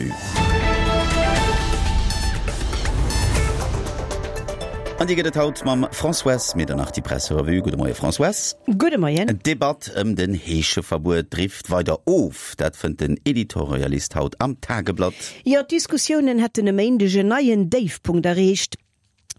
D'Presserevue. An déi gëtt et haut mam Françoise Medernach, déi Presserevue. Gudde Moie Françoise. Gudde Moien. D'Debatt ëm den Heescheverbuet drift weider of. Dat fënnt den Editorialist haut am Tageblatt. Jo, d'Diskussiounen hätten e Méindeg en neien Déifpunkt erreecht.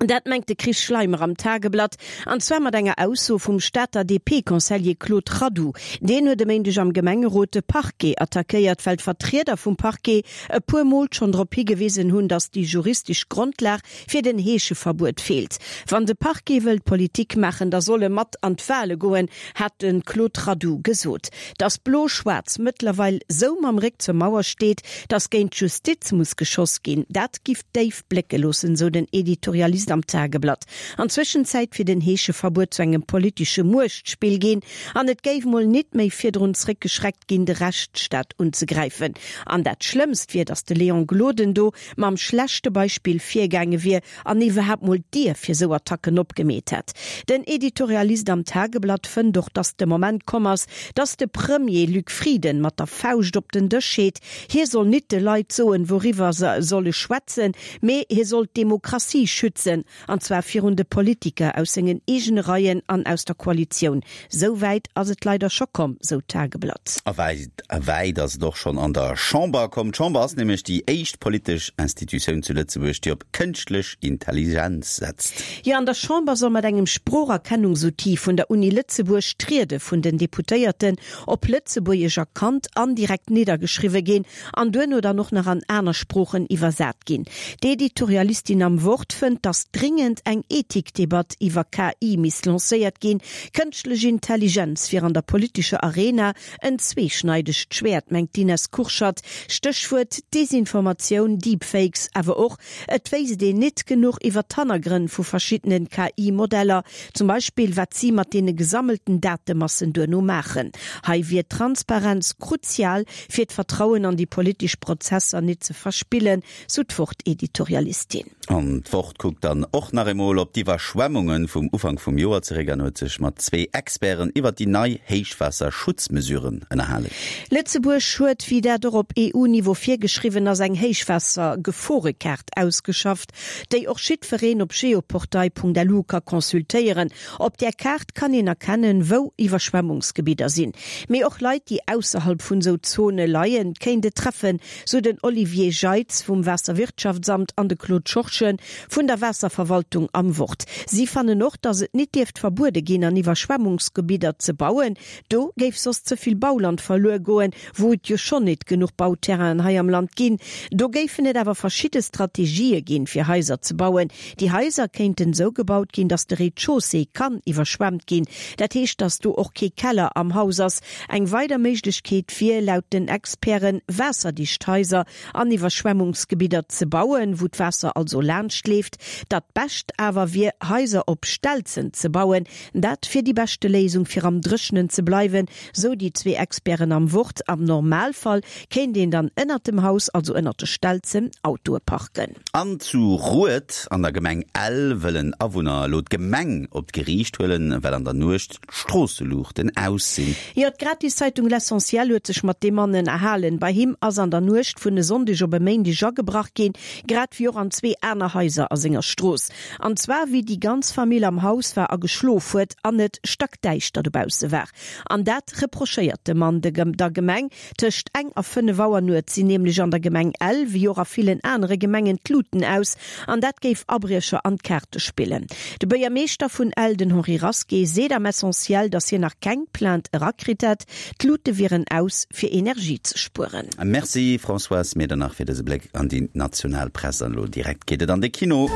Dat mengt de Chris Schleimer am Tageblatt, an zwar mat enger Ausso vum Stater DP-Conseiller Claude Radoux. Deen huet e Méindeg am Gemengerot de Parquet attackéiert, well d'Vertrieder vum Parquet e puer Mol schonn drop higewisen hunn, datt déi juristesch Grondlag fir den Heescheverbuet feelt. Wann de Parquet wëllt Politik maachen, da soll e mat an d'Wale goen, hat de Claude Radoux gesot. Datt Blo-Schwaarz mëttlerweil sou mam Réck zur Mauer steet, datt géint d'Justiz muss geschoss ginn, dat giff déif blécke loossen, sou den Editorialist am Tageblatt. An Zwëschenzäit wier den Heescheverbuet zu engem politesche Muechtspill ginn an et géif mol nit méi virdrun zréckgeschreckt ginn, de Rechtsstaat unzegräifen. An dat Schlëmmst wier, datt de Léon Gloden do mam schlechte Beispill virgaange wier an iwwerhaapt mol d'Dier fir sou Attacken opgemeet hätt. Den Editorialist am Tageblatt fënnt och, datt de Moment komm ass, datt de Premier Luc Frieden mat der Fauscht op den Dësch heet. Hie soll nit de Leit soen, wouriwwer se solle schwätzen, mee hie soll d'Demokratie schützen, an zwar virun de Politiker aus sengen eegene Reien an aus der Koalitioun. Sou wäit ass et leider scho komm, sou d'Tageblatt. A wäit ass et och schonn an der Chamber komm. D'Chamber ass nämlech déi éischt politesch Institutioun zu Lëtzebuerg, déi op kënschtlech Intelligenz setzt. Jo, an der Chamber soll mat engem Sproocherkennungsoutil vun der Uni Lëtzebuerg d'Riede vun den Deputéierten op Lëtzebuergesch erkannt an direkt niddergeschriwwe ginn an duerno dann och nach an aner Sproochen iwwersat ginn. D'Editorialistin am Wort fënnt, datt dringend eng Ethikdebatt iwwer KI misst lancéiert ginn. Kënschtlech Intelligenz wier an der politescher Arena en zweeschneidegt Schwäert, mengt d'Ines Kurschat. Stéchwuert Desinformatioun, Deepfakes, awer och Et wéisst een nit genuch iwwer d'Hannergrënn vu verschiddenen KI-Modeller, zum Beispill wat si mat deene gesammelten Datemassen duerno maachen. Hei wier Transparenz kruzial, fir d'Vertrauen an déi politesch Prozesser nit ze verspillen, sou d'Wort-Editorialistin. An d'Wort kuckt dann och nach eemol op d'Iwwerschwemmunge vum Ufank vum Joer zeréck an huet sech mat zwee Experten iwwer déi nei Héichwaasserschutzmesuren ënnerhalen. Lëtzebuerg huet, wéi dat och op EU-Niveau virgeschriwwen ass, eng Héichwaassergeforekaart ausgeschafft, déi och jiddwereen op geoportail.lu ka consultéieren. Op där Kaart kann een erkennen, wou Iwwerschwemmungsgebidder sinn. Mee och Leit, déi ausserhalb vun esou Zone leien, kéint et treffen, sou den Olivier Jeitz vum Waasserwirtschaftsamt an de Claude Schorschen vun der Waasserverwaltung am Wort. Si fannen och, datt et nit dierft verbuede ginn, an Iwwerschwemmungsgebidder ze bauen. Do géif soss ze vill Bauland verluer goen, wou et jo schonn nit genuch Bauterrainen hei am Land ginn. Do géifen et awer verschidde Strategië ginn, fir Haiser ze bauen. Déi Haiser kéinten esou gebaut ginn, datt de Rez-de-chaussée kann iwwerschwemmt ginn. Dat heescht, datt do och kee Keller am Haus ass. Eng weider Méiglechkeet wier, laut den Experten, waasserdicht Haiser an Iwwerschwemmungsgebidder ze bauen, wou d'Waasser also laanscht leeft. Dat Bescht awer wier, Haiser op Stelzen ze bauen. Dat wier déi beschte Léisung fir am Dréchenen ze bleiwen, sou déi zwee Experten am Wort. Am Normalfall kéint een dann ënnert dem Haus, also ënnert de Stelzen, Autoe parken. An zu Rued an der Gemeng Ell wëllen Awunner elo d'Gemeng op d'Geriicht huelen, well an der Nuecht d'Stroosseluuchten aus sinn. Jo, d'Gratiszeitung L'Essentiel huet sech mat deem Mann ënnerhalen. Bei him ass an der Nuecht vun e Sonndeg op e Méindeg agebrach ginn, grad wéi och an zwee aner Haiser a senger Strooss. An zwar wéi déi ganz Famill am Haus war a geschlof huet an et stackdäischter dobausse war. An dat reprochéiert de Mann de der Gemeng. Tëscht eng a 5 Auer nuets sinn nämlech an der Gemeng Ell, wéi och a villen anere Gemengen, d'Luten aus. An dat géif Abriecher an d'Kaarte spillen. De Buergermeeschter vun Ell, den Henri Rasqué, seet am Essentiel, datt hien nach keng Plainte erakritt hätt. D'Lute wieren aus, fir Energie ze spueren. Merci Françoise Medernach fir dëse Bléck an déi national Press. An elo direkt geet et an de Kino.